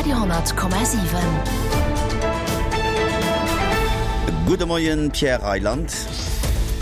Radio 10,7. Gudde Moien, Pierre Reyland.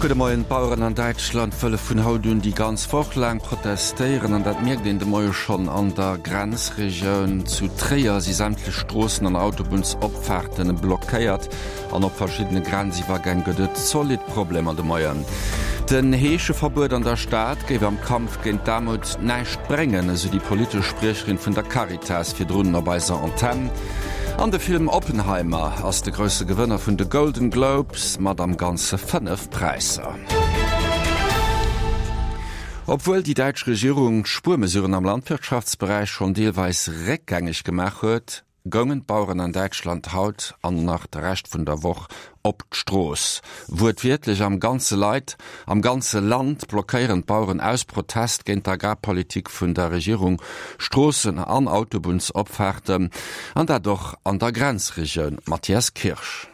Gudde Moien. D'Baueren an Däitschland wëlle vun haut un déi ganz Woch laang protestéieren an dat mierkt een de Moie schonn an der Grenzregioun. Zu Tréier si sämtlech Stroossen an Autobunnsopfaarten blockéiert. An op verschiddene Grenziwwergäng gëtt et zolidd Problemer de Moien. Den Heescheverbuet an der Stad géif am Kampf géint d'Aarmut näischt bréngen, esou déi politesch Spriecherin vun der Caritas virdrun op eiser Antenn. An de Film Oppenheimer ass de grousse Gewënner vun de Golden Globes mat am Ganze 5 Präisser. Obwuel déi däitsch Regierung d'Spuermesuren am Landwirtschaftsberäich schonn deelweis réckgängeg gemaach huet, goungen d'Baueren an Däitschland haut an nach de Rescht vun der Woch op d'Strooss. Wuertwiertlech am ganze Leit, am ganze Land blockéieren d'Baueren aus Protest géint d'Agrarpolitik vun der Regierung Stroossen an Autobunnsopfaarten, an dat och an der Grenzregioun. Mathias Kirsch.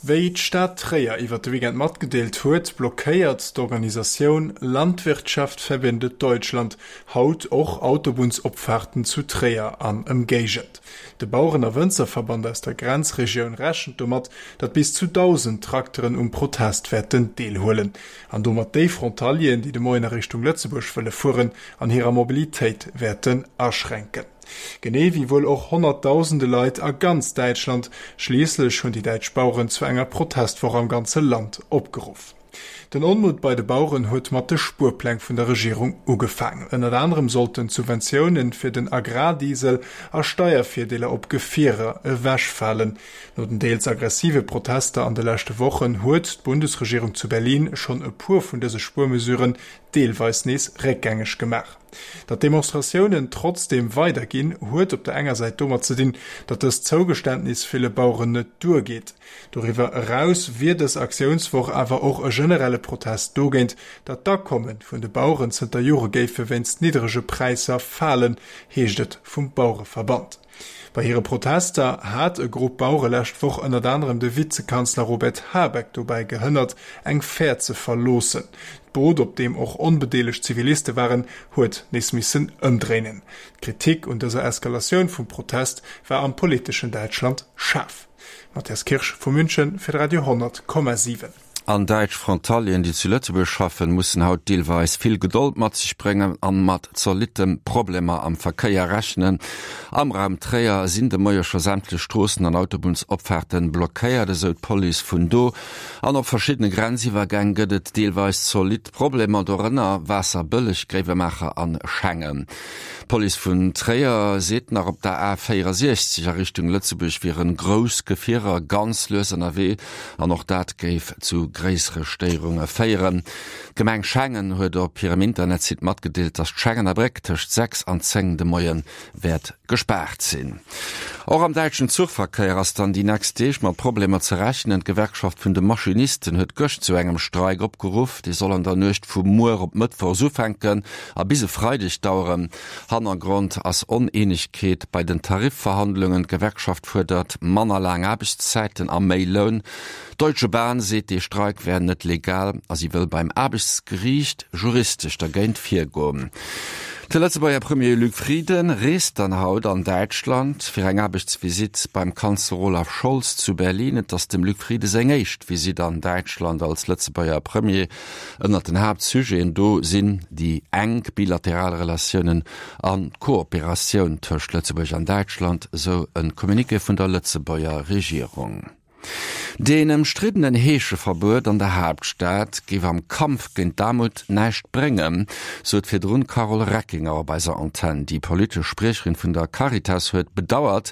Wéi d'Stad Tréier iwwer de Weekend matgedeelt huet, blockéiert d'Organisatioun Landwirtschaft verbindet Deutschland haut och Autobunnsopfaarten zu Tréier an Ëmgéigend. De Baueren a Wënzerverband aus der Grenzregioun rechent domat, datt bis zu 1.000 Trakteren um Protest wäerten deelhuelen an domat déi Frontalieren, déi de Moien a Richtung Lëtzebuerg wëlle fueren, an hirer Mobilitéit wäerten aschränken. Genee wéi wuel och honnertdausende Leit a ganz Däitschland. Schliisslech hunn déi däitsch Baueren zu enger Protestwoch am ganze Land opgeruff. Den Onmutt bei de Baueren huet mat de Spuerpläng vun der Regierung ugefaangen. Ënnert anerem sollten d'Subventioune fir den Agrardiesel a Steiervirdeeler op Gefierer ewechfalen. No den deels aggressive Protester an de leschte Wochen huet d'Bundesregierung zu Berlin schonn e puer vun dëse Spuermesuren deelweis nees réckgängeg gemaach. Datt d'Demonstratiounen trotzdeem weiderginn, huet op der enger Säit domat ze dinn, datt dëst Zougeständnis ville Baueren net duergeet. Doriwwer eraus wier dës Aktiounswoch awer och e generelle Protest dogéint, datt d'Akomme vun de Baueren zënter Jore géife wéinst nidderege Präisser falen, heescht et vum Bauereverband. Bei hire Protester hat e Grupp Bauere lescht Woch ënnert anerem de Vizekanzler Robert Habeck dobäi gehënnert, eng Fähr ze verloossen. D'Boot, op deem och onbedeelegt Ziviliste waren, huet nees missen ëmdréinen. D'Kritik un dëser Eskalatioun vum Protest war am politeschen Däitschland schaarf. Matthias Kirsch vu München fir de Radio 10,7. An däitsch Frontalieren, déi zu Lëtzebuerg schaffen, mussen haut deelweis vill Gedold mat sech bréngen an mat zolitten Problemer am Verkéier rechnen. Am Raum Tréier sinn de Moie scho sämtlech Stroossen an Autobunnsopfaarten blockéiert, esou d'Police vun do. An op verschiddene Grenziwwergäng gëtt et deelweis zolidd Problemer, dorënner Waasserbëlleg, Gréiwemaacher an Schengen. D'Police vun Tréier seet nach, op der A 64 a Richtung Lëtzebuerg wieren grouss Gefierer ganz lues ënnerwee. An och dat géif zu gréissere Stéierunge féieren. D'Gemeng Schengen huet op hirem Internetsite matgedeelt, datt d'Schengener Bréck tëscht 6 an 10 de Moie wäert gespaart sinn. Och am däitschen Zuchverkéier ass dann déi nächst Deeg mat Problemer ze rechnen. D'Gewerkschaft vun de Maschinisten huet gëscht zu engem Streik opgeruff. Dee soll an der Nuecht vu muer op Mëttwochs ufänken a bis e Freideg daueren. Hannergrond ass Oneenegkeet bei den Tarifverhandlungen. D'Gewerkschaft fuerdert manner laang Aarbechtszäiten a méi Loun. D'Deutsche Bahn seet, dee Streik wär net legal a si wëll beim Aarbechtsgeriicht juristesch dergéint virgoen. De Lëtzebuerger Premier Luc Frieden reest dann haut an Däitschland fir eng Aarbechtsvisitt beim Kanzler Olaf Scholz zu Berlin. Et ass dem Luc Frieden seng éischt Visitt an Däitschland als Lëtzebuerger Premier. Ënnert den Haaptsujeten do sinn déi enk bilateral Relatiounen an d'Kooperatioun tëscht Lëtzebuerg an Däitschland, esou e Communiqué vun der Lëtzebuerger Regierung. Deen ëmstriddenen Heescheverbuet an der Haaptstad géif am Kampf géint d'Aarmut näischt bréngen, sot virdrun d'Carole Reckinger op eiser Antenn. Déi politesch Spriecherin vun der Caritas huet bedauert,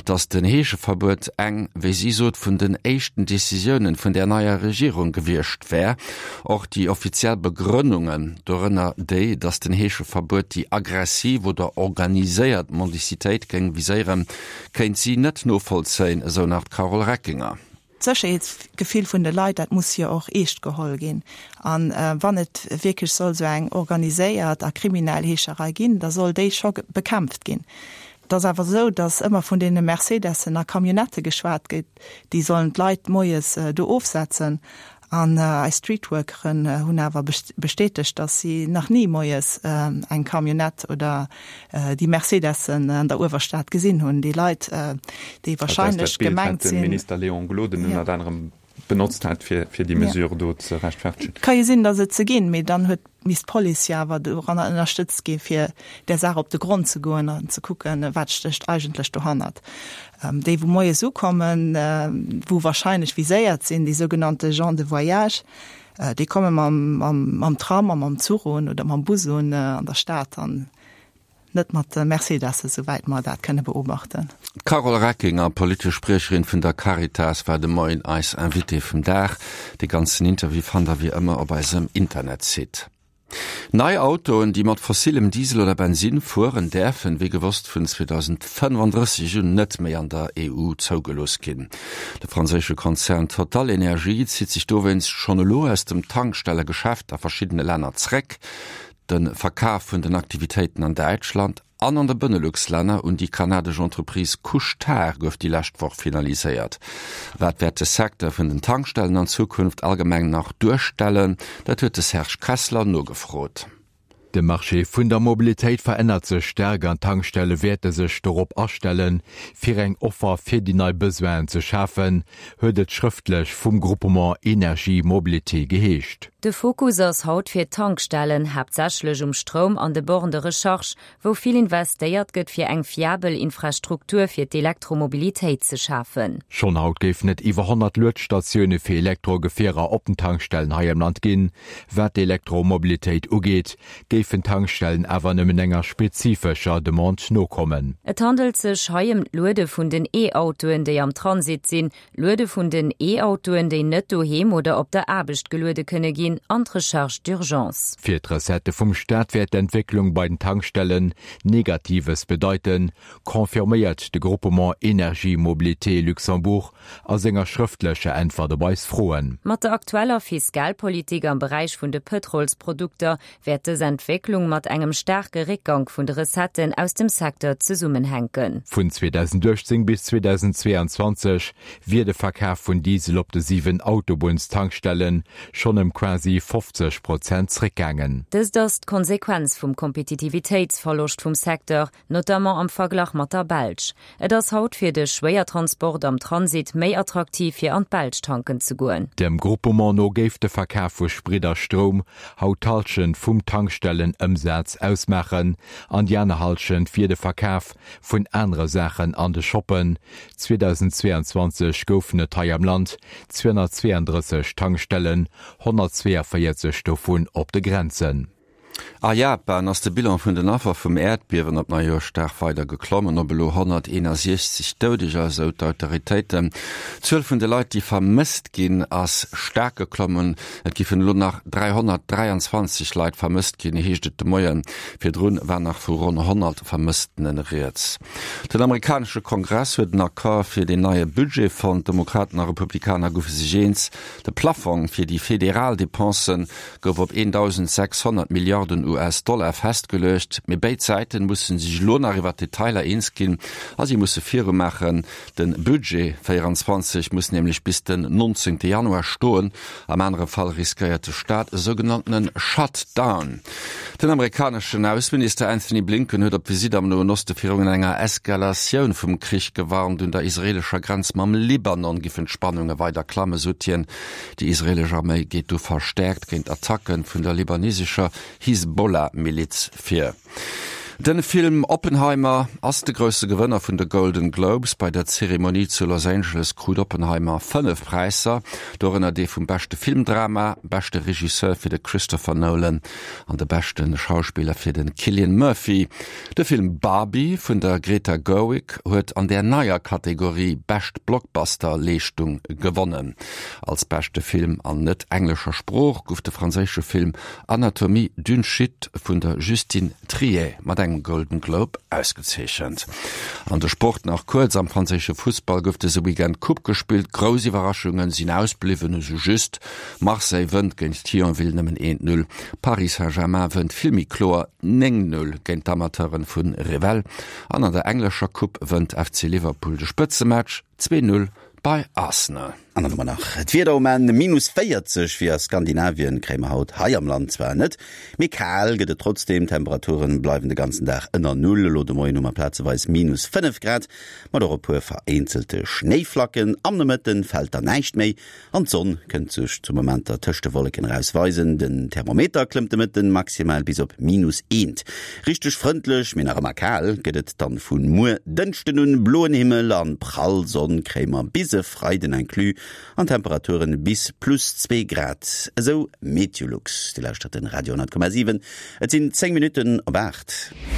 datt den Heescheverbuet eng, wéi si sot, vun den éischten Decisiounen vun där neier Regierung gewiescht wär. Och déi offiziell Begrënnungen, dorënner déi, datt den Heescheverbuet déi aggressiv oder organiséiert Mendicitéit géing viséieren, kéint si net novollzéien, esou nach d'Carole Reckinger. D'Sécherheetsgefill vun de Leit, dat muss jo och eescht geholl ginn. A wann et wierklech soll esou eng organiséiert a kriminell Heescherei ginn, da soll déi scho bekämpft ginn. Et ass awer esou, datt ëmmer vun deene Mercedessen a Camionnettë geschwat gëtt, déi sollen d'Leit moies do ofsetzen. An eis Streetworkeren hunn awer bestätegt, dass si nach ni moies eng Camionnette oder déi Mercedessen an der Uewerstad gesinn hunn. Déi Leit, déi wahrscheinlech gemengt sinn. Dat ass dat Bild, wat de Minister Léon Gloden ënnert anerem benotzt hat, fir déi Mesure do ze rechtfertegen. Ka jo sinn, dass et se ginn, mee dann huet misst d'Police jo awer doranner ënnerstëtzt gi fir där Saach op de Grond ze goen an ze kucken, wat stécht eigentlech dohannert. Déi wou moies ukommen, wou wahrscheinlech viséiert sinn, déi sougenannte gens de voyage, déi komme mam Tram a mam Zuch un oder mam Bus un an der Stad an Net mat de Mercedessen, souwäit mer dat kënne beobachten. D'Carole Reckinger, politesch Spriecherin vun der Caritas, war de Moien eis Invitée vum Dag. De ganzen Interview fannt der wéi ëmmer op eisem Internetsite. Nei Autoen, déi mat fossillem Diesel oder Bensinn fueren, däerfen, wéi gewosst, vun 2035 un net méi an der EU zougelooss ginn. De franséische Konzern TotalEnergies zitt sech dowéinst schonn elo aus dem Tankstellegeschäft a verschiddene Länner zréck. De Verkaf vun den Aktivitéiten an Däitschland an an de Benelux-Länner un déi kanadesch Entreprise Couche-Tard gouf déi lescht Woch finaliséiert. Wat wäert de Secteur vun den Tankstellen an Zukunft allgemeng nach duerstellen? Dat huet de Serge Kessler nogefrot. De Marché vun der Mobilitéit verännert sech staark an d'Tankstelle wäerte sech dorop astellen, fir eng Offer fir déi nei Besoinen ze schafen, huet et schrëftlech vum Groupement Energie Mobilité geheescht. De Fokus ass haut fir d'Tankstellen, haaptsächlech um Stroum an de Bornes de recharge, wou vill investéiert gëtt fir eng fiabel Infrastruktur fir d'Elektromobilitéit ze schafen. Schonn haut géifen et iwwer 100 Luedstatioune fir Elektrogefierer op den Tankstellen hei am Land ginn. Wat d'Elektromobilitéit ugeet, géifen d'Tankstellen awer nëmmen enger spezifescher Demande nokommen. Et handelt sech hei ëm d'Luede vun den E-Autoen, déi am Transit sinn, Luede vun den E-Autoen, déi net doheem oder op der Aarbecht geluede kënne ginn, an d'Recharge d'urgence. Fir d'Recettë vum Staat wäert d'Entwécklung bei den Tankstellen Negatives bedeiten, confirméiert de Groupement Energie Mobilité Luxembourg a senger schrëftlecher Äntwert op eis Froen. Mat der aktueller Fiskalpolitik am Beräich vun de Pëtrolsprodukter wäert dës Entwécklung mat engem staarke Réckgank vun de Recetten aus dem Secteur zesummenhänken. Vun 2018 bis 2022 wier de Verkaf vun Diesel op de 7 Autobunnstankstelle schonn ëm quasi 50 Prozent zréckgaangen. Dëst ass d'Konsequenz vum Kompetitivitéitsverloscht vum Secteur, notamment am Verglach mat der Belsch. Et ass haut fir de Schwéiertransport am Transit méi attraktiv fir an d'Belsch tanken ze goen. Dem Groupement no géif de Verkaf vu Sprit a Stroum haut d'Hallschent vum Tankstellenëmsaz ausmaachen an déi aner Hallschent wier de Verkaf vun anere Saachen an de Shoppen. 2022 goufen et hei am Land 232 Tankstellen, 142 dovun op de Grenzen. A Japan ass de Bilan vun den Affer vum Äerdbiewen op Neijoerschdag weider geklommen op elo 161 Doudeger, esou d'Autoritéiten. D'Zuel vun de Leit, déi vermësst ginn, ass staark geklommen. Et giffen elo nach 323 Leit vermësst ginn, heescht et de Moien. Virdrun war nach vu ronn 100 Vermësstene rieds. Den amerikanesche Kongress huet en Accord fir deen neie Budget fonnt. Demokraten a Republikaner goufe sech eens, de Plaffong fir déi federal Depensen gouf op 1.600 Milliarden US-Dollar festgeluecht. Mee béid Säiten musse sech elo nach iwwer d'Detailer eens ginn a si musse virumaachen. De Budget 24 muss nämlech bis den 19 Januar stoen, am anere Fall riskéiert de Staat e sougenanntene Shutdown. Den amerikaneschen Ausseminister Anthony Blinken huet op Visitt am Noen Oste virun enger Eskalatioun vum Krich gewarnt. Un der israeelescher Grenz mam Libanon giffen d'Spannunge weider klammen, sot hien. Déi israeelesch Arméi geet do verstäerkt géint Attacke vun der libanesescher Hisbollah-Miliz vir. De Film Oppenheimer ass de grousse Gewënner vun de Golden Globes. Bei der Zeremonie zu Los Angeles krut Oppenheimer 5 Präisser, dorënner dee vum beschte Filmdrama, beschte Regisseur fir de Christopher Nolan an de beschte Schauspiller fir de Cillian Murphy. De Film Barbie vun der Greta Gerwig huet an där neier Kategorie Bescht Blockbuster-Leeschtung gewonnen. Als beschte Film an net englescher Sprooch gouf de franséische Film Anatomie d'une chute vun der Justine Triet mat engem Golden Globe ausgezeechent. An de Sport nach kuerz, Am franséische Fussball gouf dëse Weekend d'Coupe gespillt. Grouss Iwwerraschunge sinn ausbliwwen, esou just Marseille wënnt géint Thionville nëmmen 1, 0, Paris Saint-Germain wënnt vill méi kloer 9, 0 géint d'Amateuren vu Revel an an der englescher Coupe wënnt FC Liverpool de Spëtzematch 2, 0 bei Arsenal. An dann hu mer nach d'Wieder um Enn, Minus 40 wéi a Skandinavien kréie mer haut hei am Land zwar net, mee kal gëtt et trotzdeem. D'Temperature bleiwen de ganzen Dag ënner Null. Elo de Moien hu mer plazeweis minus 5 Grad, mat och e puer vereenzelte Schnéiflacken. Am Nomëtte fält dann näischt méi An d'Sonn kënnt sech zu Momenter tëscht de Wolleken eraus weisen. Den Thermometer klëmmt de Mëtten maximal bis op minus eent. Richteg frëndlech, mee nach ëmmer kal gëtt et dann vu muer Dënschden un. Bloen Himmel an prall Sonn kréie mer bis e Freiden inclus an Temperaturen bis plus 2 Grad, esou Meteolux. Dir lauschtert den Radio 10,7, et sinn 10 Minutten op 8.